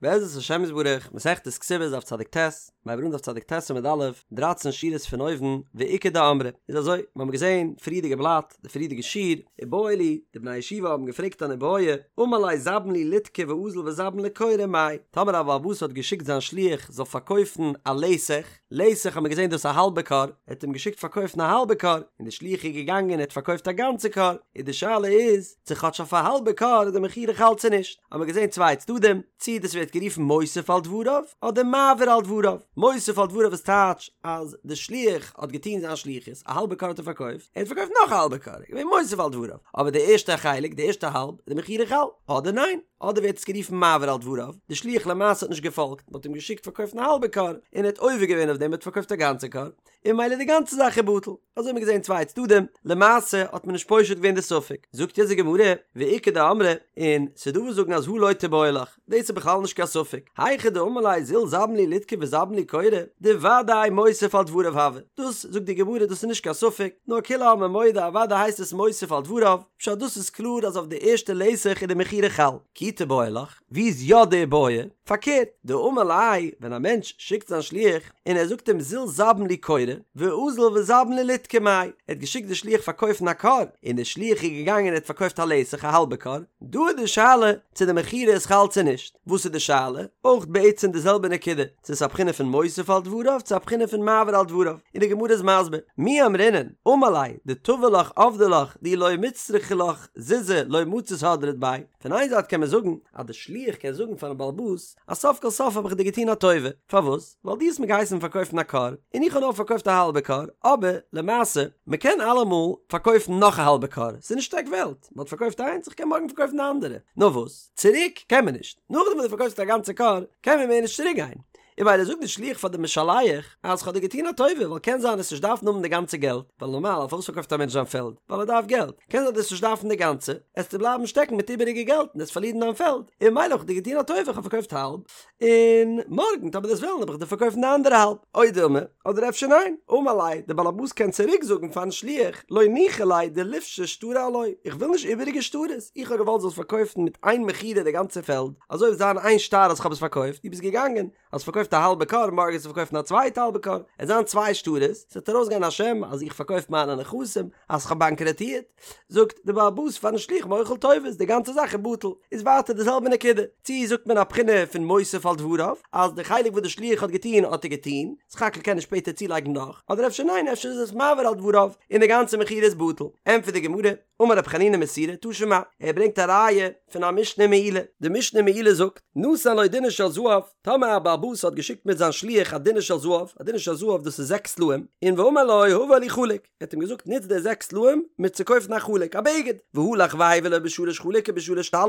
בעזרת השם יתברך, מסכת כתובות דף צדיק ט, מיר הייבן אן דף צדיק ט עמוד א', דרייצן שורות פון אויבן, ואיכא דאמרי, איז אזוי, מיר האבן געזען פריערדיגע בלאט, די פריערדיגע שיעור, איבעיא להו, די בני הישיבה האבן געפרעגט אן איבעיא, אמר ליה זבין לי ליטקא ואזיל וזבין לי כורא מאי, טאמער א בעל הבית האט געשיקט זיין שליח זאל פארקויפן א לתך, לתך האט מען געזען דאס א האלבע כור, ער האט אים געשיקט פארקויפן א האלבע כור, און די שליח איז געגאנגען און האט פארקויפט א גאנצע כור, איז די שאלה איז, צו כאטש אויף א האלבע כור איז די מכירה חל צו נישט, האט מען געזען צוויי צדדים, צי דאס ווערט גערופן מוסיף על דבריו, אדער מעביר על דבריו, מוסיף על דבריו איז טייטש אז די שליח האט געטון זיין שליחות, א האלבע כור האט ער פארקויפט, ער האט פארקויפט נאך א האלבע כור, איז געווען מוסיף על דבריו, אבער די ערשטע חלק, די ערשטע האלב, איז די מכירה חל, אדער ניין? אדער ווערט עס גערופן מעביר על דבריו, די שליח למעשה האט נישט געפאלגט, מען האט אים געשיקט פארקויפן א האלבע כור, און ער האט עובר געווען אויף דעם, ער האט פארקויפט א גאנצע כור, און ממילא די גאנצע זאך איז בטל. אזוי האט מען געזען צוויי צדדים, למעשה האט מען נישט פושט געווען די ספק. זאגט יעצט די גמרא, ואיכא דאמרי, און ס'דא וואס זאגן אז הא לא תיבעי לך, דאס איז בכלל נישט קיין ספק, היכא דאמר ליה זיל זבין לי ליטקא וזבין לי כורא, דודאי מוסיף על דבריו הוי, דאס זאגט די גמרא דאס איז נישט קיין ספק, נאר כולי עלמא מודה אוודאי הייסט עס מוסיף על דבריו, פשט דאס איז קלאר אז אויף די ערשטע לתך איז די מכירה חל. כי תיבעי לך, ווי איז יא די בעיא? פארקערט, דאמר ליה, ווען א מענטש שיקט זיין שליח און ער זאגט אים זיל זבין לי כורא, ואזיל וזבין לי ליטקא מאי, ער האט געשיקט די שליח פארקויפן א כור, און די שליח איז געגאנגען און ער האט פארקויפט א לתך א האלבע כור, דא איז די שאלה צו די מכירה איז חל צו נישט, וואס איז די שאלה? אויך בעצם די זעלבע נקודה, צו ס'איז א בחינה פון מוסיף על דבריו צו א בחינה פון מעביר על דבריו, און די גמרא איז מסביר, מי אמרינן, אמר ליה, דטבא לך עבדי לך, דאי לא מצטרכי לך זוזי לא מצית הדרת ביה, פון איין זייט קען מען זאגן אז די שליח קען זאגן פארן בעל הבית אז סוף כל סוף האב איך דיר געטון א טובה, פארוואס? ווייל דו האסט מיר געהייסן פארקויפן א כור, און איך האב נאר פארקויפט א האלבע כור, אבער למעשה, מען קען אלעמאל פארקויפן נאך א האלבע כור, ס'איז נישט עק וועלט, מען האט פארקויפט איינס, איך קען מארגן פארקויפן די אנדערע, נאר וואס? צוריק קען מען נישט, נאכדעם וואס דו פארקויפסט א גאנצע כור, קען מען מער נישט צוריק גיין, און ממילא זאגט די שליח פאר די משלח אז כ'האב דיר געטון א טובה ווייל קען זיין עסט נישט דארפן האבן די גאנצע געלט, ווייל נארמאל פארוואס פארקויפט א מענטש זיין פעלד? ווייל ער דארף געלט, קען זיין דו עסט נישט דארפן די גאנצע, עסטו בלייבן שטעקן מיט איבעריגע געלט און עסט פארלירן דיין פעלד, און ממילא האב איך דיר געטון א טובה כ'האב פארקויפט האלב, און מארגן טאמער דו עסט וועלן וועל איך דיר פארקויפן די אנדערע האלב, או דילמא, אדער אפשר ניין, אמר ליה, די בעל הבית קען צוריק זאגן פארן שליח, לא ניחא ליה דליפשו שטרי עילואי, איך וויל נישט איבעריגע שטרות, איך האב געוואלט זאלסט פארקויפן מיט איין מכירה די גאנצע פעלד, אזוי וועט זיין איין שטר אז כ'האב עס פארקויפט, דו ביסט געגאנגען, האסט פארקויפט א האלבע כור, מארגן וועסטו פארקויפן א צווייטע האלבע כור, עס זיין צוויי שטרות, ס'וועט ארויסגיין א שם אז איך פארקויף מיינע נכסים, אז כ'האב באנקראטירט, זאגט די בעל הבית פארן שליח מוחל טובות, די גאנצע זאך איז בטל, איז ווייטער די זעלבע נקודה, צי זאגט מען א בחינה פון מוסיף על דבריו, אז די חלק וואס די שליח האט געטון האט ער געטון, סך הכל קען ער שפעטער צולייגן נאך, אדער אפשר ניין אפשר איז עס מעביר על דבריו, און די גאנצע מכירה איז בטל, ענטפערט די גמרא, אמר רב חנינא מסורא תא שמע, ער ברענגט א ראיה פון א משנה מעילה, די משנה מעילה זאגט, נתן לו דינר של זהב, טאמער א בעל הבית האט געשיקט מיט זיין שליח א דינר של זהב, א דינר של זהב דאס איז זעקס סלעים, און ואמר לו הבא לי חלוק, ער האט אים געזאגט נוץ די זעקס סלעים מיר צו קויפן א חלוק, א בגד, והלך והביא לו בשלש חלוק ובשלש טלית,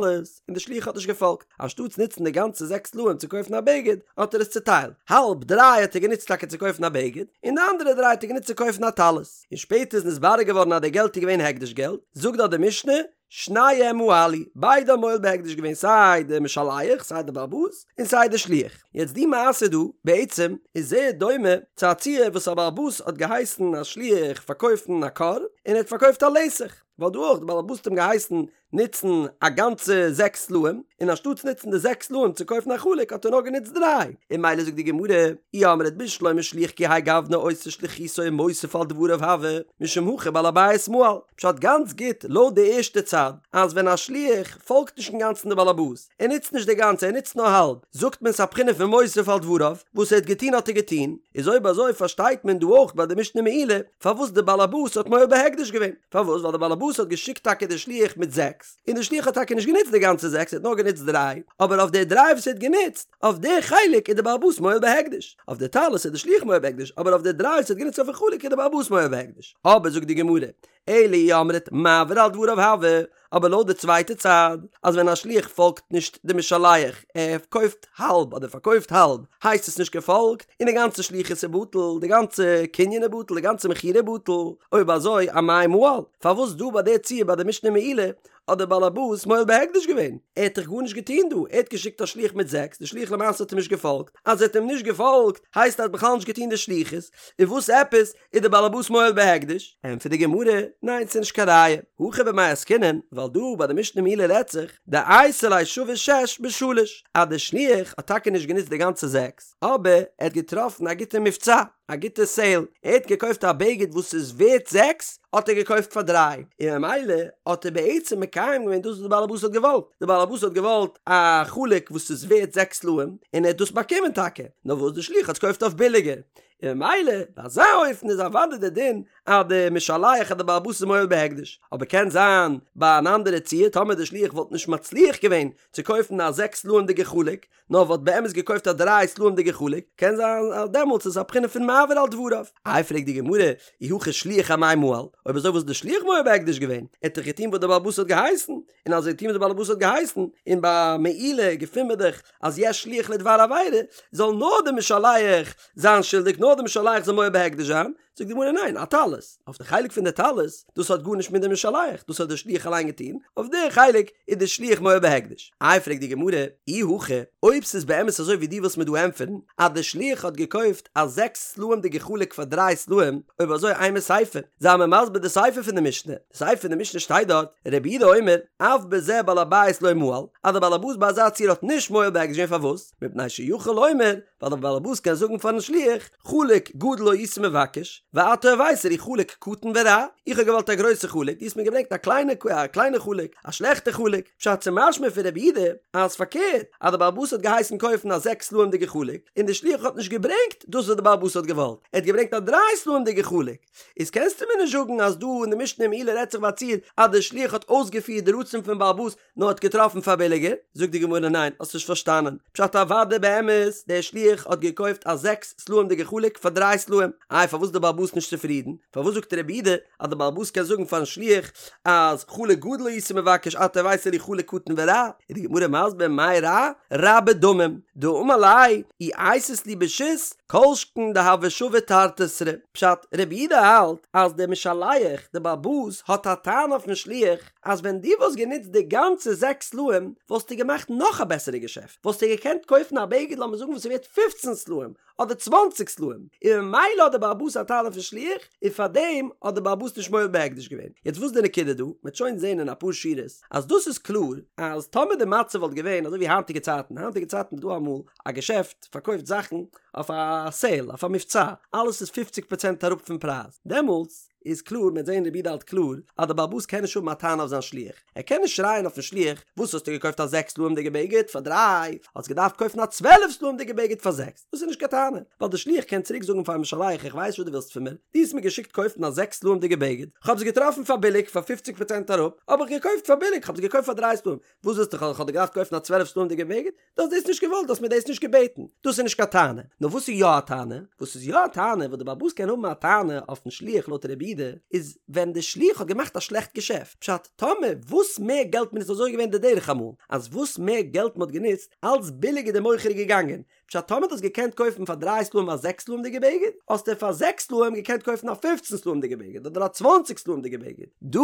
און די שליח האט נישט געפאלגט, אנשטאטס נוצן די גאנצע זעקס סלעים צו קויפן א בגד, האט ער עס צוטיילט, האלב דריי האט ער גענוצט טאקע צו קויפן א בגד, און די אנדערע דריי האט ער גענוצט צו קויפן א טלית. און שפעטער איז נתברר געווארן אז די געלט איז געווען הקדש געלט, זאגט דארט די משנה, שניהם מעלו, ביידע האבן מועל בהקדש געווען סיי די משלח סיי די בעל הבית און סיי די שליח. יעצט די מעשה דא בעצם איז זייער דומה צו א ציור וואס א בעל הבית האט געהייסן א שליח פארקויפן א כור און ער האט פארקויפט א לתך, ווייל דא אויך די בעל הבית האט אים געהייסן נוצן א גאנצע זעקס סלעים, און אנשטאטס נוצן די זעקס סלעים צו קויפן א חלוק האט ער נאר גענוצט דריי, און ממילא זאגט די גמרא, אי אמרת בשלמא שליח כי האי גוונא עושה שליחותו ומוסיף על דבריו הוי, משום הכי בעל הבית מעל, פשט גאנץ גוט לויט די ערשטע צד, אז ווען א שליח פאלגט נישט אינגאנצן די בעל הבית, ער נוצט נישט די גאנצע ער נוצט נאר האלב, זאגט מען ס'א בחינה פון מוסיף על דבריו, וואס ער האט געטון האט ער געטון, איז אויב אזוי פארשטייט מען דא אויך ביי די משנה מעילה פארוואס די בעל הבית האט מועל בהקדש געווען. פארוואס? ווייל די באלעבאס האט געשיקט טאקע די שליח מיט זעקס, און די שליח האט טאקע נישט גענוצט די גאנצע זעקס, ער האט נאר גענוצט דריי, אבער אויף די דריי וואס ער האט גענוצט, אויף די חלק איז די באלעבאס מועל בהקדש, אויף די טלית איז די שליח מועל בהקדש, אבער אויף די דריי וואס ער האט גענוצט אויפן חלוק איז די באלעבאס מועל בהקדש. אבער זאגט די גמרא, אלא אי אמרת מעביר על דבריו הוי, אבער לויט די צווייטע צד, אז ווען א שליח פאלגט נישט די משלח, ער קויפט האלב אדער פארקויפט האלב, הייסט עס נישט געפאלגט, און די גאנצע שליחות איז בטל, די גאנצע קנין איז בטל, די גאנצע מכירה איז בטל, אויב אזוי אמאי מעל, פארוואס דא ביי די ציור ביי די משנה מעילה האט דער בעל הבית מועל בהקדש געווען? ער האט דאך גארנישט געטון דא, ער האט געשיקט א שליח מיט זעקס, די שליח למעשה האט אים נישט געפאלגט, אז ער האט אים נישט געפאלגט הייסט ער האט בכלל נישט געטון די שליחות, און וואס עפעס איז דער בעל הבית מועל בהקדש? ענטפערט די גמרא, ניין ס'איז נישט קיין ראיה, הכא במאי עסקינן, ווייל דא ביי די משנה מעילה רעדט זיך, דאייתי ליה שווה שש בשלש, אז די שליח האט טאקע נישט גענוצט די גאנצע זעקס, אבער ער האט געטראפן א גוטע מבצע, א גוטע סעיל, ער האט געקויפט א בגד וואס איז ווערט זעקס, האט ער געקויפט פאר דריי, און ממילא האט ער בעצם מקיים געווען דאס וואס די בעלעבאס האט געוואלט, די בעלעבאס האט געוואלט א חלוק וואס איז ווערט זעקס סלעים, און ער האט דאס באקומען טאקע, נאר וואס די שליח האט עס געקויפט אויף ביליגער, און ממילא ביי אזא אופן איז אוודאי די דין אז די משלח אז די בעלעבאס איז מועל בהקדש, אבער קען זיין ביי אן אנדערע ציור טאמער די שליח וואלט נישט מצליח געווען צו קויפן א זעקס סלעים'דיגע חלוק, נאר וואלט באמת געקויפט א דריי סלעים'דיגע חלוק, קען זיין אז דעמאלטס איז א בחינה פון מעביר על דבריו. איי פרעגט די גמרא, אי הכי שליח אמאי מעל, אויב אזוי וואס איז די שליח מועל בהקדש געווען? ער האט דאך געטון וואס די בעלבאס האט געהייסן, און אז ער האט געטון וואס די בעלבאס האט געהייסן, און ביי מעילה געפינט מען דאך אז יש שליח לדבר עבירה, זאל נאר די משלח זיין שולדיג, נאר די משלח זאל מועל בהקדש זיין, זאגט די גמרא ניין, אטלית, אויף די חלק פון די טלית, דאס האט גארנישט מיט די משלח, דאס האט די שליח אליין געטון, אויף די חלק איז די שליח מועל בהקדש. איי פרעגט די גמרא, אי הכי, אויב ס'איז באמת אזוי ווי דו ווילסט מיר דא ענטפערן, אז די שליח האט געקויפט א זעקס סלעים'דיגע חלוק פאר דריי סלעים, אויב אזוי אימא סיפא, זיי מיר מסביר די סיפא פון די משנה, די סיפא פון די משנה שטייט דארט, רבי יהודה אומר, אף בזה בעל הבית לא מעל, אז די בעל הבית ביי אזא ציור האט נישט מועל בהקדש געווען פארוואס? מפני שיכול לומר, ווייל דער בעל הבית קען זאגן פארן שליח, חלוק גדול הייתי מבקש, ואתה הבאת לי חלוק קטן ורע, איך האב געוואלט א גרויסע חלוק, דו האסט מיר געברענגט א קליינע א קליינע חלוק, א שלעכטע חלוק, פשט ס'משמע פון רבי יהודה אז פארקערט, אז דער בעל הבית האט געהייסן קויפן א זעקס סלעים'דיגע חלוק, און דער שליח האט נישט געברענגט דאס וואס דער בעל הבית האט געוואלט, ער האט געברענגט א דריי סלעים'דיגע חלוק. איז קענסטו מיר נישט זאגן אז דא אין די משנה אין מעילה רעדט זיך ביי א ציור אז דער שליח האט אויסגעפירט די רצון פון בעל הבית נאר האט געטראפן פאר ביליגער? זאגט די גמרא ניין האסט נישט פארשטאנען, פשט אוודאי באמת דער שליח האט געקויפט א זעקס סלעים'דיגע חלוק פאר דריי סלעים, איי פארוואס איז די בעל הבית נישט צופרידן? פארוואס זאגט רבי יהודה אז די בעל הבית קען זאגן פארן שליח אז חלוק גדול הייתי מבקש אתה הבאת לי חלוק קטן ורע? איז די גמרא מסביר מאי רע? רע בדמים, דאמר ליה אי אייתית לי בשית כל שכן דהוה שווה תרתי סרי, פשט, רבי יהודה האלט אז דער משלח, דער בעל הבית, האט א טענה אויפן שליח אז ווען דו וואלסט גענוצט די גאנצע זעקס סלעים וואלסטו געמאכט נאך א בעסערע געשעפט, וואלסטו געקענט קויפן א בגד לאמיר זאגן וואס איז ווערט פופצן סלעים אדער צוואנציג סלעים, און ממילא האט דער בעל הבית א טענה אויפן שליח, און פארדעם האט דער בעל הבית נישט מועל בהקדש געווען. יעצט וואס איז די נקודה דא? מ'וועט שוין זען אין אפאר שורות אז דאס איז קלאר אז טאמער די מצב וואלט געווען אזוי ווי היינטיגע צייטן, היינטיגע צייטן איז דא אמאל א געשעפט פארקויפט זאכן אויף א סעיל, אויף א מבצע, אלעס איז פופציג פראצענט אראפ פון פרייז, דעמאלטס איז קלאר, מ'וועט זען רבי יהודה האלט קלאר, אז דער בעל הבית קען נישט האבן א טענה אויף זיין שליח, ער קען נישט שרייען אויפן שליח, וואס האסטו געקויפט א זעקס סלעים'דיגע בגד פאר דריי, האסט געדארפט קויפן א צוועלף סלעים'דיגע בגד פאר זעקס, דאס איז נישט קיין טענה, ווייל דער שליח קען צוריק זאגן פארן משלח איך ווייס וואס דו ווילסט פון מיר, דו האסט מיר געשיקט קויפן א זעקס סלעים'דיגע בגד, כ'האב עס געטראפן פאר ביליג פאר פופציג פראצענט אראפ, האב איך געקויפט פאר ביליג, כ'האב עס געקויפט פאר דריי סלעים, וואס ווילסטו כ'האב דיר געדארפט קויפן א צוועלף סלעים'דיגע בגד? דו האסט דאס נישט געוואלט, דו האסט מיר דאס נישט געבעטן, דאס איז נישט קיין טענה. נאר וואס איז יא א טענה? וואס איז יא א טענה וואס די בעל הבית קען האבן א טענה אויפן שליח לויט רבי יהודה, איז ווען די שליח האט געמאכט א שלעכט געשעפט. פשט, טאמער וואס מער געלט מען נוצט אזוי איז געווען די דרך אמאל, אז וואס מער געלט מען האט גענוצט, אלץ ביליגער די מוכר איז געגאנגען. פשט, טאמער דו האסט געקענט קויפן פאר דריי סלעים א זעקס סלעים'דיגע בגד, האסטו פאר זעקס סלעים געקענט קויפן א פופצן סלעים'דיגע בגד אדער א צוואנציג סלעים'דיגע בגד. דא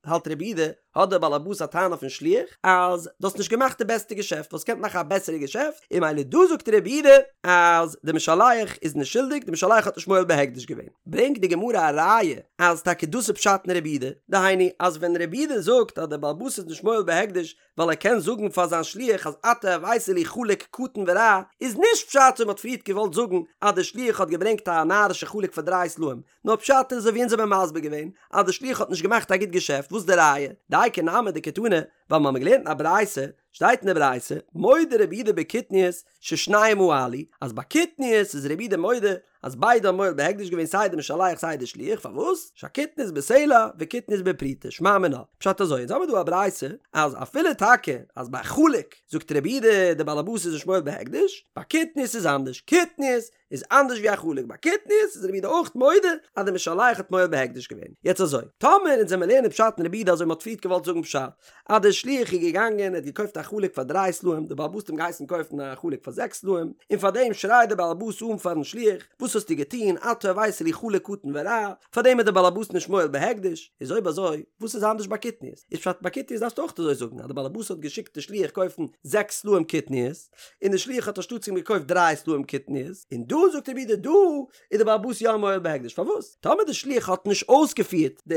האלט רבי יהודה האט דער בעל הבית א טענה אויפן שליח אז דו האסט נישט געמאכט די בעסטע געשעפט, וואלסט געקענט מאכן א בעסערע געשעפט, און ממילא דא זאגט רבי יהודה אז די משלח איז נישט שולדיג, די משלח האט נישט מועל בהקדש געווען. ברענגט די גמרא א ראיה אז טאקע דאס איז פשט אין רבי יהודה, דהיינו אז ווען רבי יהודה זאגט אז דער בעל הבית איז נישט מועל בהקדש ווייל ער קען זאגן פאר זיין שליח אז אתה הבאת לי חלוק קטן ורע, איז נישט פשט ווי מ'האט פריערט געוואלט זאגן אז דער שליח האט געברענגט א נארישע חלוק פאר דריי סלעים, נאר פשט איז אזוי ווי אונז האבן מסביר געווען אז די שליח האט נישט געמאכט א גוט געשעפט, וואס די ראיה? דאיכא נמי דקתני, ווייל מ'האמיר געלערנט אין א ברייתא, שטייט אין די ברייתא, מודה רבי יהודה בקטניות ששניהם מעלו, אז ביי קטניות איז רבי יהודה מודה אז ביידע האבן מועל בהקדש געווען סיי די משלח סיי די שליח, פארוואס? שהקטניות בסלע וקטניות בפרוטה, שמע מינה, פשט אזוי, אונז האמיר דא א ברייתא אז אפילו טאקע אז ביי חלוק זאגט רבי יהודה די בעל הבית איז נישט מועל בהקדש, ביי קטניות איז אנדערש, קטניות איז אנדערש ווי א חלוק ביי קטניות איז רבי יהודה אויך מודה אז די משלח האט מועל בהקדש געווען. יעצט אזוי, טאמער אונז וועמיר לערנען פשט אין רבי יהודה אזוי מ'האט פריערט געוואלט זאגן פשט אז די. שליח איז געגאנגען ער האט געקויפט א חלוק פאר דריי סלעים, די בעל הבית האט אים געהייסן קויפן א חלוק פאר זעקס סלעים, און פאר דעם שרייט די בעל הבית אן פארן שליח, וואס האסטו געטון, אתה הבאת לי חלוק קטן ורע, פאר דעם איז די בעל הבית נישט מועל בהקדש, איז אויב אזוי, וואס איז אנדערש ביי קטניות? איז פשט ביי קטניות דארפסטו אויך אזוי זאגן אז די בעל הבית האט געשיקט די שליח קויפן זעקס סלעים קטניות, און די שליח האט אנשטאטס אים געקויפט דריי סלעים קטניות, און דא זאגט רבי יהודה דא איז די בעל הבית יא מועל בהקדש, פארוואס? טאמער די שליח האט נישט אויסגעפירט די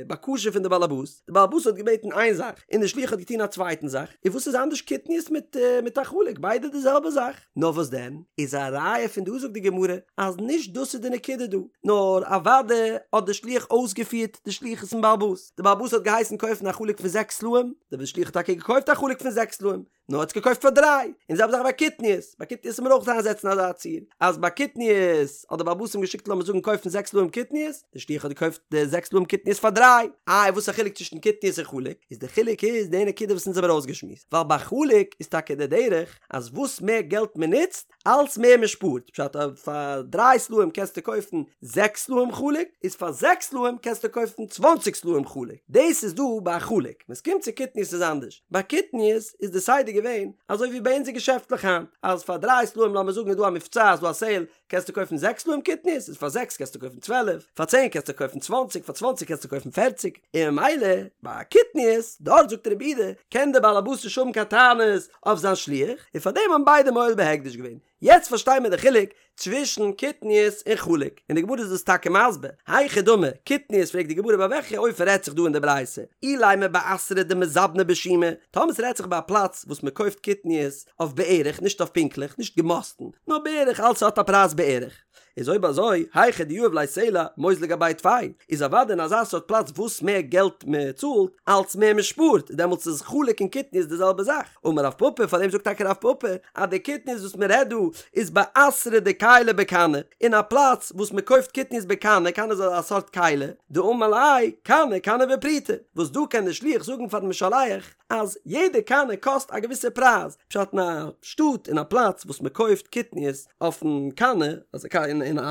בקשה פון די בעל הבית, די בעל הבית האט געבעטן איין זאך און די שליח האט געטון א צווייטן זאך, איז וואס איז אנדערש קטניות מיט מיט א חלוק, ביידע די זעלבע זאך. נאר וואס דען, איז א ראיה פון דא זאגט די גמרא אז נישט דאס איז די נקודה דא, נאר אוודאי האט די שליח אויסגעפירט די שליחות פון בעל הבית, די בעל הבית האט געהייסן קויפן א חלוק פון זעקס סלעים, די שליח האט טאקע געקויפט א חלוק פון זעקס סלעים, נאר האט עס געקויפט פאר דריי, און די זעלבע זאך ביי קטניות, ביי קטניות זאל מען אויך איינזעצן אזא ציור, אז ביי קטניות האט די בעל הבית אים געשיקט לאמיר זאגן קויפן זעקס סלעים קטניות, די שליח האט געקויפט די זעקס סלעים קטניות פאר דריי, איי וואס איז א חילוק צווישן קטניות און חלוק, איז די חילוק איז די נקודה וואס אונז האבן ארויסגעשמועסט, ווייל ביי חלוק איז טאקע די דרך אז וואס מער געלט מען נוצט, אלץ מער מען שפארט, פשט אז פאר דריי סלעים קענסטו קויפן זעקס סלעים חלוק, איז פאר זעקס סלעים קענסטו קויפן צוואנציג סלעים חלוק, דאס איז דא ביי א חלוק, ווען ס'קומט צו קטניות איז אנדערש, ביי קטניות איז די סדר געווען אזוי ווי ביי אונזער געשעפטלעך היינט, אז פאר דריי סלעים לאמיר זאגן איז דא א מבצע איז דא א סעיל, קענסטו קויפן זעקס סלעים קטניות, איז פאר זעקס קענסטו קויפן צוועלף, פאר צען קענסטו קויפן צוואנציג, פאר צוואנציג קענסטו קויפן פערציג, און ממילא ביי קטניות, דארט זאגט רבי יהודה, קען דער בעל הבית נישט האבן קיין טענות אויף זיין שליח, און פאר דעם האבן ביידע מועל בהקדש געווען. יעצט פארשטיי מיר די חילוק צווישן קטניות און חלוק, און די גמרא איז דאס טאקע מסביר, היכי דמי, קטניות פרעגט די גמרא ביי וועלכע אופן רעדט זיך דא אין די ברייתא, אילימא באתרא דמזבני בשומא, טאמער ס'רעדט זיך ביי א פלאץ וואס מ'קויפט קטניות אויף בערך, נישט אויף פונקטליך, נישט געמאסטן, נאר בערך, אלץ האט א פרייז בערך. איז אויב אזוי, היכא דיהיב ליה סלע, מוזלי גביה טפי, איז אוודאי אין אזא סארט פלאץ וואס מער געלט מען צאלט, אלץ מער מען שפארט, דעמאלטס איז חלוק און קטניות די זעלבע זאך. אמר רב פפא, פארדעם זאגט טאקע רב פפא, אז די קטניות וואס מען רעדט דא, איז באתרא דכיילי בקני, אין א פלאץ וואס מען קויפט קטניות בקני, קנה איז א סארט כלי, דאמר ליה, קנה, קנה בפרוטה, וואס דא קען דער שליח זאגן פארן משלח, אז יעדע קנה קאסט א געוויסע פרייז, פשט אין א שטאט אין א פלאץ וואס מען קויפט קטניות אויפן קנה,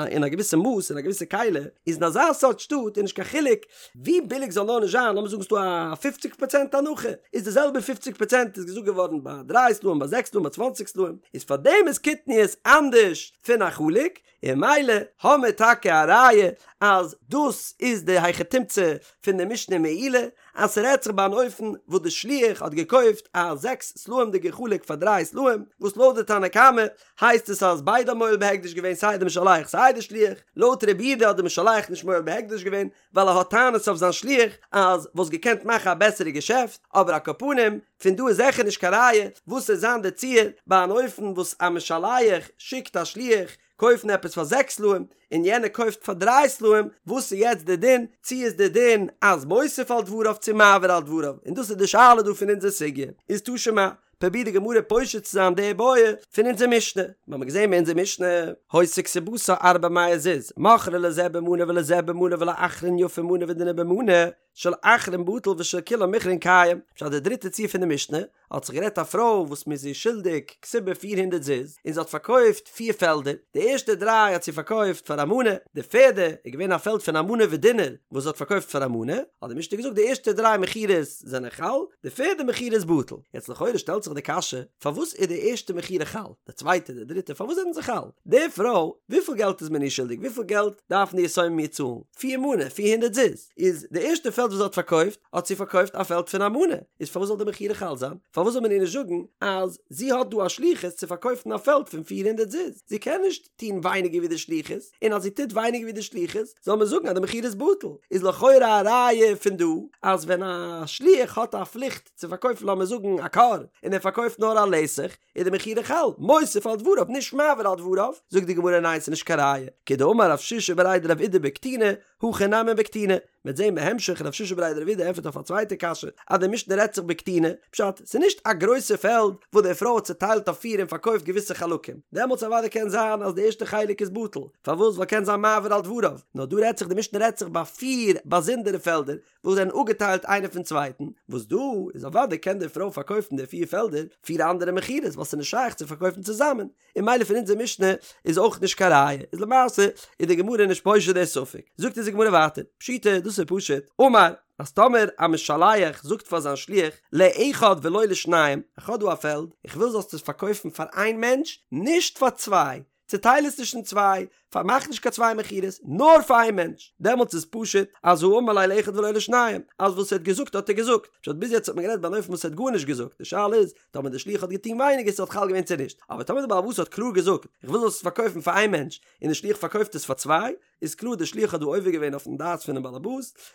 אין א געוויסע מאס אין א געוויסע כלי, איז אין אזא סארט שטאט איז נישט קיין חילוק ווי ביליג זאל נאר נישט זיין, לאמיר זאגן ס'דא א פופציג פראצענט הנחה, איז די זעלבע פופציג פראצענט איז געזאגט געווארן ביי דריי סלעים ביי זעקס סלעים ביי צוואנציג סלעים, איז פארדעם איז קטניות אנדערש פון א חלוק, און ממילא האמיר טאקע א ראיה אז דאס איז די היכי תמצא פון די משנה מעילה, אז ס'רעדט זיך ביי אן אופן וואס די שליח האט געקויפט א זעקס סלעים'דיגע חלוק פאר דריי סלעים, וואס לויט די תנא קמא הייסט עס אז ביידע האבן מועל בהקדש געווען סיי די משלח סיי די שליח, לויט רבי יהודה האט די משלח נישט מועל בהקדש געווען ווייל ער האט טענות אויף זיין שליח אז וואלסט געקענט מאכן א בעסערע געשעפט, אבער על כל פנים פון דא איז זיכער נישט קיין ראיה וואס וועט זיין די ציור ביי אן אופן וואס א משלח שיקט א שליח קויפן עפעס פאר זעקס סלעים און יענער קויפט פאר דריי סלעים, וואס איז יעצט די דין, צו איז די דין אז מוסיף על דבריו צו מעביר על דבריו, און דאס איז די שאלה דא פון אונזער סוגיא, איז תא שמע, פרובירט די גמרא פושט צו זיין די בעיא פון אונזער משנה, מיר האבן געזען אין אונזער משנה, היתה כתובתה ארבע מאות זוז, מכרה לזה במנה ולזה במנה ולאחרון יפה מנה ודינר במנה, של אחרון בטל ושל כולן מכרן קיים, פשט די דריטע ציור פון די משנה, האט זיך גערעדט א פרוי וואס מ'איז איר שולדיג כתובה פיר הונדערט זוז, און זי האט פארקויפט פיר פעלדער, די ערשטע דריי האט זי פארקויפט פאר א מנה, די פערדע איז געווען א פעלד פון א מנה ודינר וואס זי האט פארקויפט פאר א מנה, האט די משנה געזאגט די ערשטע דריי מכירות זענען חל, די פערדע מכירה איז בטל. יעצט לכאורה שטעלט זיך די קשיא, פארוואס איז די ערשטע מכירה חל, די צווייטע, די דריטע, פארוואס זענען זיי חל? די פרוי, וויפיל געלט איז מען איר שולדיג, וויפיל געלט דארפן די יתומים איר צאלן? פיר מנה, 400 זוז. איז די ערשטע פעלד וואס זי האט פארקויפט, האט זי פארקויפט א פעלד פון א מנה, איז פארוואס זאל די מכירה חל זיין? פארוואס זאל מען איר נישט זאגן אז זי האט דא א שליחות צו פארקויפן א פעלד פון 400 זוז? זי קען נישט טון ווייניגער ווי די שליחות, און אז זי טוט ווייניגער ווי די שליחות, זאל מען זאגן אז די מכירה איז בטל. איז לכאורה א ראיה פון דא, אז ווען א שליח האט א פליכט צו פארקויפן לאמיר זאגן א כור, און ער פארקויפט נאר א לתך, איז די מכירה חל, מוסיף על דבריו נישט מעביר על דבריו, זאגט די גמרא ניין ס'איז נישט קיין ראיה, כדאמר רב שישא בריה דרב אידי בקטיני, הכא נמי בקטיני, מ'וועט זעהן בהמשך רב שישא בריה דרב אידי ענטפערט אויף א צווייטע קשיא אז די משנה רעדט זיך בקטיני, פשט, ס'איז נישט א גרויסע פעלד וואס די פרוי האט צוטיילט אויף פיר און פארקויפט געוויסע חלקים, דעמאלטס אוודאי קען זיין אז די ערשטע חלק איז בטל, פארוואס ווייל קען זיין מעביר על דבריו, נאר דא רעדט זיך די משנה רעדט זיך ביי פיר באזונדערע פעלדער וואס זענען אפגעטיילט איינער פון צווייטן, וואס דא איז אוודאי קען די פרוי פארקויפן די פיר פעלדער פיר אנדערע מכירות ווייל ס'איז נישט שייך צו פארקויפן צוזאמען, און ממילא פון אונזער משנה איז אויך נישט קיין ראיה, איז למעשה איז די גמרא נישט פושט די ספק, זאגט אונז די גמרא ווייטער, פשיטא, דאס דאס איז פשוט, אמר, אז טאמער א משלח זאגט פאר זיין שליח, לאחד ולא לשניים, איך האב דא א פעלד, איך וויל זאלסט עס פארקויפן פאר איין מענטש, נישט פאר צוויי, צוטייל עס נישט אין צוויי, פארמאך נישט קיין צוויי מכירות, נאר פאר איין מענטש, דעמאלטס איז פשוט אז האמר ליה לאחד ולא לשניים, אז וואס ער האט געזאגט האט ער געזאגט, פשט ביז יעצט האט מען גערעדט ביי אן אופן וואס ער האט גארנישט געזאגט, די שאלה איז טאמער דער שליח האט געטון ווייניגער ס'וואלט חל געווען צו נישט, אבער טאמער דער בעל הבית האט קלאר געזאגט איך וויל זאלסט עס פארקויפן פאר איין מענטש, און דער שליח פארקויפט עס פאר צוויי, איז קלאר דער שליח האט דא עובר געווען אויפן דעת פונעם בעל הבית,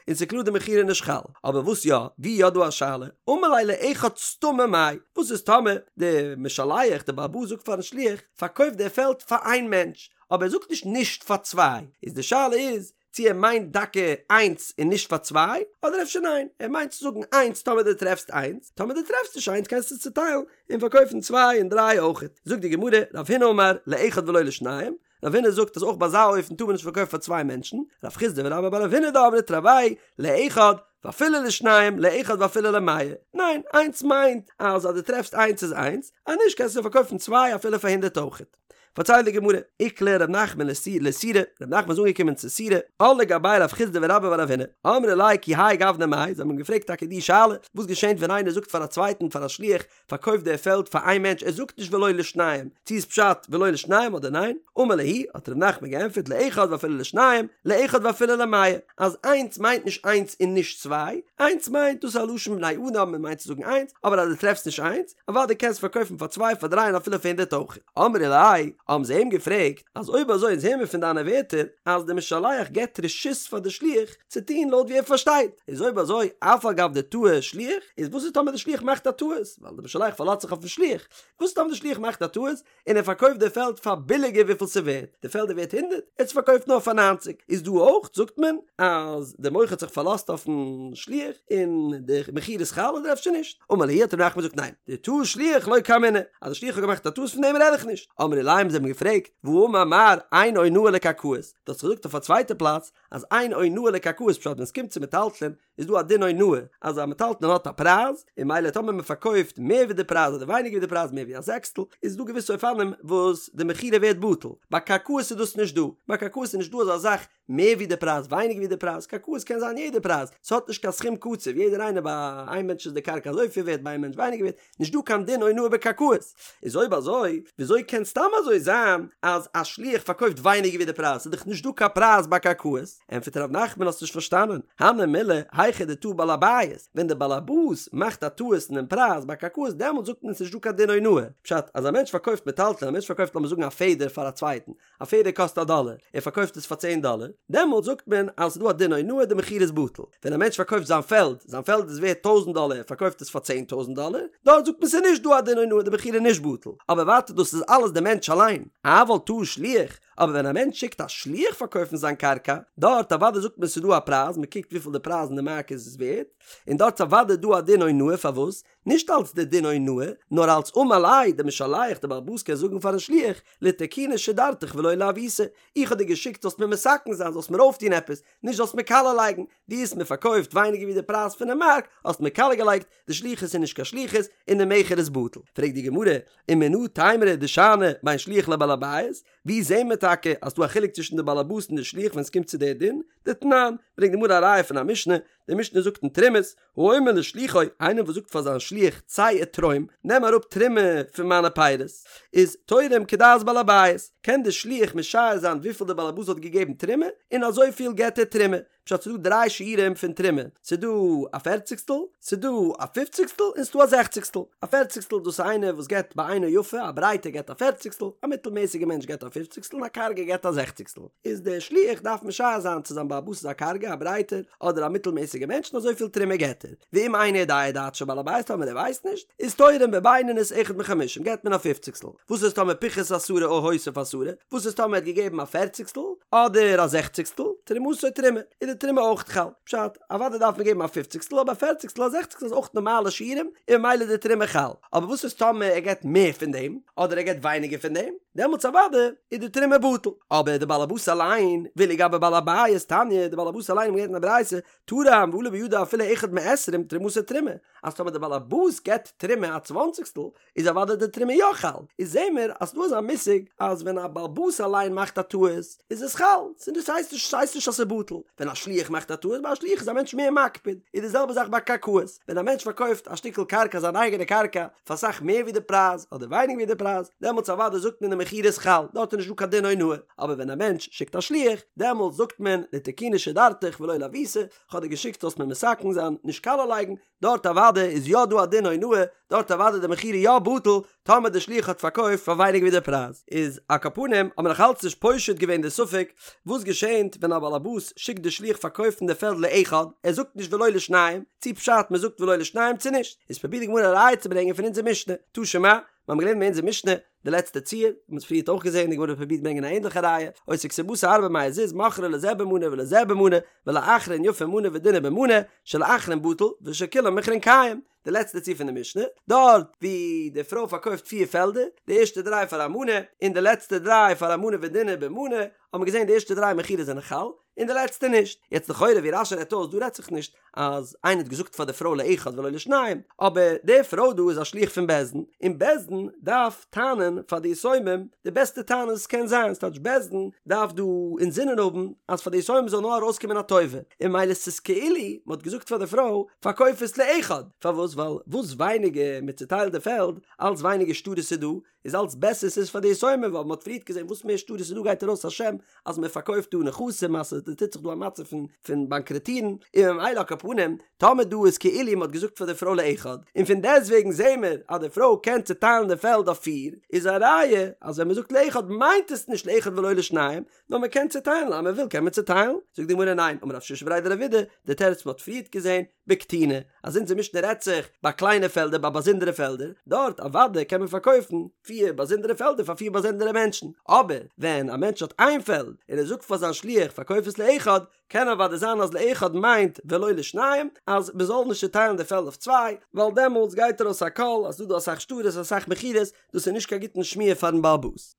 און ס'איז קלאר די מכירה איז נישט חל. אבער וואס יא, ווי יא דא א שאלה, אמר ליה לאחד סתמא מאי, וואס איז טאמער דער משלח, דער בעל הבית זאגט פארן שליח, פארקויף דער פעלד פאר איין מענטש, אבער ער זאגט נישט נישט פאר צוויי, איז די שאלה איז, צו ער מיינט דוקא איינס און נישט פאר צוויי, אדער אפשר ניין, ער מיינט צו זאגן איינס טאמער דו טרעפסט איינס, טאמער דו טרעפסט נישט איינס קענסטו עס צוטיילן און פארקויפן צוויי און דריי אויכעט. זאגט די גמרא, רב הונא אמר, לאחד ולא לשניים, רב הונא זאגט אז אויך ביי אזא אופן טאר מען נישט פארקויפן פאר צוויי מענטשן, רב חסדא ורבה בר רב הונא דאמרי תרוייהו לאחד ואפילו לשניים לאחד ואפילו למאה, ניין, איינס מיינט אז אז דו טרעפסט איינס איז איינס, אז נישט קענסטו פארקויפן צוויי אפילו פאר הונדערט אויכעט. פארציילט די גמרא, איקלע ר' נחמן לסורא, ר' נחמן איז אנגעקומען צו סורא, עול לגביה רב חסדא ורבה בר רב הונא, אמרי ליה כי האי גוונא מאי, זיי האבן אים געפרעגט טאקע די שאלה, וואס געשענט ווען איינער זאגט פאר א צווייטן פאר א שליח, פארקויפט דער פעלד פאר איין מענטש ער זאגט נישט ולא לשניים, צו איז פשט ולא לשניים אדער ניין? אמר להו, האט ר' נחמן געענטפערט לאחד ואפילו לשניים, לאחד ואפילו למאה, אז איינס מיינט נישט איינס און נישט צוויי, איינס מיינט דאס איז א לשון בני אדם מען מיינט צו זאגן איינס, אבער אז דו טרעפסט נישט איינס, אוודאי קענסט פארקויפן פאר צוויי פאר דריי און אפילו פאר הונדערט אויך. אמרי ליה, האבן זיי אים געפרעגט, אז אויב אזוי אונז הערן מיר פון דיינע ווערטער אז דער משלח געבט רשות פאר די שליח צו טון לויט ווי ער פארשטייט, איז אויב אזוי אף על גב דטעה שליח, איז וואס איז טאמער די שליח מאכט א טעות, ווייל די משלח פארלאזט זיך אויפן שליח, וואס איז טאמער די שליח מאכט א טעות און ער פארקויפט די פעלד פאר ביליגער וויפיל ס'ווערט, די פעלד איז ווערט הונדערט, ער האט עס פארקויפט נאר פאר ניינציג, איז דא אויך זאגט מען אז די מוכר האט זיך פארלאזט אויפן שליח און די מכירה איז חל אדער אפשר נישט? אמר להו האט ר' נחמן געזאגט ניין, דטעה שליח לא קאמינא, אז די שליח האט געמאכט א טעות פון דעם רעד איך נישט, אמרי ליה האבן זיי אים געפרעגט, והאמר מר אין אונאה לקרקעות, דו האסט געזאגט אויף א צווייטע פלאץ אז אין אונאה לקרקעות פשט ווען עס קומט צו מטלטלין איז דא א דין אונאה אז א מטלטלין האט א פרייז און ממילא טאמער מען פארקויפט מער ווי די פרייז אדער ווייניגער ווי די פרייז מער ווי א זעקסטל איז דא געוויסע אופנים וואס די מכירה ווערט בטל, ביי קרקעות איז דאס נישט דא, ביי קרקעות איז נישט דא אזא זאך מער ווי די פרייז ווייניגער ווי די פרייז, קרקעות קען זיין יעדע פרייז, ס'האט נישט קיין סכום קצוב, יעדער איינער ביי איין מענטש איז די קרקע אזויפיל ווערט ביי איין מענטש ווייניגער ווערט, נישט דא קיין דין אונאה בקרקעות, איז אויב אזוי וויאזוי קען סתם אזוי זיין אז א שליח פארקויפט ווייניגער ווי די פרייז, ס'איז דאך נישט דא קיין פרייז ביי קרקעות, ענטפערט ר' נחמן האסט נישט פארשטאנען, הני מילי היכא דטעה בעל הבית, ווען דער בעל הבית מאכט א טעות אינעם פרייז ביי קרקעות דעמאלט זאגט מען ס'נישט דא קיין דין אונאה, פשט אז א מענטש פארקויפט מטלטלין א מענטש פארקויפט לאמיר זאגן א פעדער פאר א צווייטן, א פעדער קאסט א דאלער, ער פארקויפט עס פאר צען דאלער, דעמאלט זאגט מען אז ס'איז דא א דין אונאה די מכירה איז בטל. ווען א מענטש פארקויפט זיין פעלד, זיין פעלד איז ווערט טויזנט דאלער ער פארקויפט עס פאר צען טויזנט דאלער, דארט זאגט מען ס'איז נישט דא א דין אונאה די מכירה איז נישט בטל. אבער ווייטער דאס איז אלעס די מענטש אליין. אבל טעה שליח, אבער ווען א מענטש שיקט א שליח פארקויפן זיין קרקע, דארט אוודאי זאגט מען ס'איז דא א פרייז, מ'קוקט וויפיל די פרייז אין די מארק איז ווערט, און דארט איז אוודאי דא א דין אונאה פארוואס? נישט אלס די דין אונאה, נאר אלס אמר ליה, די משלח, די בעל הבית קען זאגן פארן שליח, לתקוני שדרתיך ולא לעוותי, איך האב דיר געשיקט זאלסט מיר מתקן זיין, זאלסט מיר אויפטון עפעס, נישט זאלסט מיר קאלע לייגן, דו האסט מיר פארקויפט ווייניגער ווי די פרייז פונעם מארק, האסט מיר קאלע געלייגט, די שליחות איז נישט קיין שליחות, און די מכר איז בטל. פרעגט די גמרא, ומנא תימרא דשאני בין שליח לבעל הבית, ווי זעהן מיר טאקע אז ס'דא א חילוק צווישן די בעל הבית און די שליח ווען ס'קומט צו די דין? דתנן, ברענגט די גמרא א ראיה פון א משנה, די משנה זאגט אין תרומות, האומר לשלוחו, איינער וואס זאגט פאר זיין שליח צא ותרום, נעם אראפ תרומה פון מיינע פירות, איז תורם כדעת בעל הבית, קען די שליח משער זיין וויפיל די בעל הבית האט געגעבן תרומה, און אזויפיל געבט ער תרומה. פשט ס'דא דריי שיעורים פון תרומה, ס'דא א פערציגסטל, ס'דא א פופציגסטל, און ס'דא א זעכציגסטל. א פערציגסטל דאס איז איינער וואס געבט בעינו יפה, א ברייטער געבט א פערציגסטל, א מיטלמעסיגער מענטש געבט א פופציגסטל, און א קארגער געבט א זעכציגסטל. איז דער שליח דארף משער זיין צו זיין בעל הבית איז א קארגע, א ברייטער, אדער א מיטלמעסיגער מענטש און אזויפיל תרומה געבט ער. ואם אינו יודע דעתו של בעל הבית טאמער ער ווייסט נישט, איז תורם בבינונית אחד מחמישים געבט מען א פופציגסטל. וואס איז טאמער פיחת עשרה או הוסיף עשרה? וואס איז טאמער ער האט געגעבן א פערציגסטל אדער א זעכציגסטל? תרומתו תרומה, איז די תרומה אויך חל. פשט, אוודאי דארף מען געבן א פופציגסטל אבער א פערציגסטל א זעכציגסטל איז אויך נארמאלע שיעורים און ממילא איז די תרומה חל. אבער וואס איז טאמער ער געבט מער פון דעם אדער ער געבט ווייניגער פון דעם? דעמאלטס אוודאי איז די תרומה בטל. אבער די בעל הבית אליין, ואילו גבי בעל הבית תניא, די בעל הבית אליין האט מען געלערנט אין א ברייתא, תרם. זיין ועלה בידו אפילו אחד מעשרים תרומתו תרומה, אז טאמער די באלעבאס געבט תרומה א צוואנציגסטל איז אוודאי די תרומה יא חל, איז זעהן מיר אז ס'דא אזא מושג אז ווען א באלעבאס אליין מאכט א טעות איז עס חל, ס'איז ס'הייסט נישט ס'הייסט נישט אז ס'איז בטל, ווען א שליח מאכט א טעות ביי א שליח איז א מענטש מער מקפיד, איז די זעלבע זאך ביי קרקעות, ווען א מענטש פארקויפט א שטיקל קרקע זיין אייגענע קרקע פאר אסאך מער ווי די פרייז אדער ווייניגער ווי די פרייז, דעמאלטס אוודאי זאגט מען די מכירה איז חל, דארט איז נישט דא קיין דין אונאה, אבער ווען א מענטש שיקט א שליח, דעמאלטס זאגט מען לתקוני שדרתיך ולא לעוותי, כ'האב דיר געשיקט זאלסט מיר מתקן זיין, נישט קאליע לייגן, דארט אוודאי איז יא דא א דין אונאה, דארט אוודאי די מכירה יא בטל, טאמער די שליח האט פארקויפט פאר ווייניגער ווי די פרייז. איז על כל פנים האט מען נאך אלץ נישט פושט געווען די ספק, וואס געשענט ווען א באלעבאס שיקט די שליח פארקויפן די פעלד לאחד, ער זאגט נישט ולא לשניים, צי פשט מען זאגט ולא לשניים צו נישט, איז פרובירט די גמרא א ראיה צו ברענגען פון אונזער משנה, תא שמע, מיר האבן געלערנט אין אונזער משנה, די לעצטע ציור, מ'האט עס פריערט אויך געזען, די גמרא האט פרובירט ברענגען א ענדליכע ראיה, היתה כתובתה ארבע מאות זוז מכרה לזה במנה ולזה במנה, ולאחרון יפה מנה ודינר במנה, של אחרון בטל, ושל כולן מכרן קיים, די לעצטע ציור פון די משנה, דארט ווי די פרוי פארקויפט פיר פעלדער, די ערשטע דריי פאר א מנה, און די לעצטע דריי פאר א מנה ודינר במנה, האט מען געזען די ערשטע דריי מכירות זענען חל, און די לעצטע נישט. יעצט לכאורה ווי רש"י רעדט אויס דא רעדט זיך נישט אז איינער האט געזאגט פאר די פרוי לאחד ולא לשניים, אבער די פרוי דא איז א שליח פון בית דין, און בית דין דארף טענה'ן פאר די יתומים די בעסטע טענה וואס קען זיין, ס'טייטש בית דין דארף דא אינזינען האבן אז פאר די יתומים זאל נאר ארויסקומען א טובה, און ממילא ס'איז כאילו מ'האט געזאגט פאר די פרוי פארקויף עס לאחד, פארוואס ווייל וואס ווייניגער מ'צוטיילט די פעלד אלץ ווייניגער שטרות איז דא, איז אלץ בעסער ס'איז פאר די יתומים ווייל מ'האט פריערט געזען וואס מער שטרות איז דא גייט ארויס א שם אז מ'פארקויפט דא נכסים אז ס'טוט זיך דא א מצב פון פון באנקראטירן און ממילא על כל פנים טאמער דא איזכאילו מ'האט געזאגט פאר די פרוי לאחד און פון דעסטוועגן זעהן מיר אז די פרוי קען צוטיילן די פעלד אויף פיר איז א ראיה אז ווען מ'זאגט לאחד מיינט עס נישט לאחד ולא לשניים נאר מ'קען צוטיילן אז מ'וויל קען מען צוטיילן זאגט די גמרא ניין אמר רב שישא בריה דרב אידי די תירוץ מ'האט פריערט געזען בקטיני, אז אונזער משנה רעדט זיך ביי קליינע פעלדער ביי באזונדערע פעלדער, דארט אוודאי קען מען פארקויפן פיר באזונדערע פעלדער פאר פיר באזונדערע מענטשן, אבער ווען א מענטש האט איין פעלד און ער זאגט פאר זיין שליח פארקויף עס לאחד, קען אוודאי זיין אז לאחד מיינט ולא לשניים, אז מען זאל נישט צוטיילן די פעלד אויף צוויי, ווייל דעמאלטס גייט ארויס א קול אז ס'דא דא אסאך שטרות אסאך מכירות, דאס איז נישט קיין גוטן שמועה פארן בעל הבית.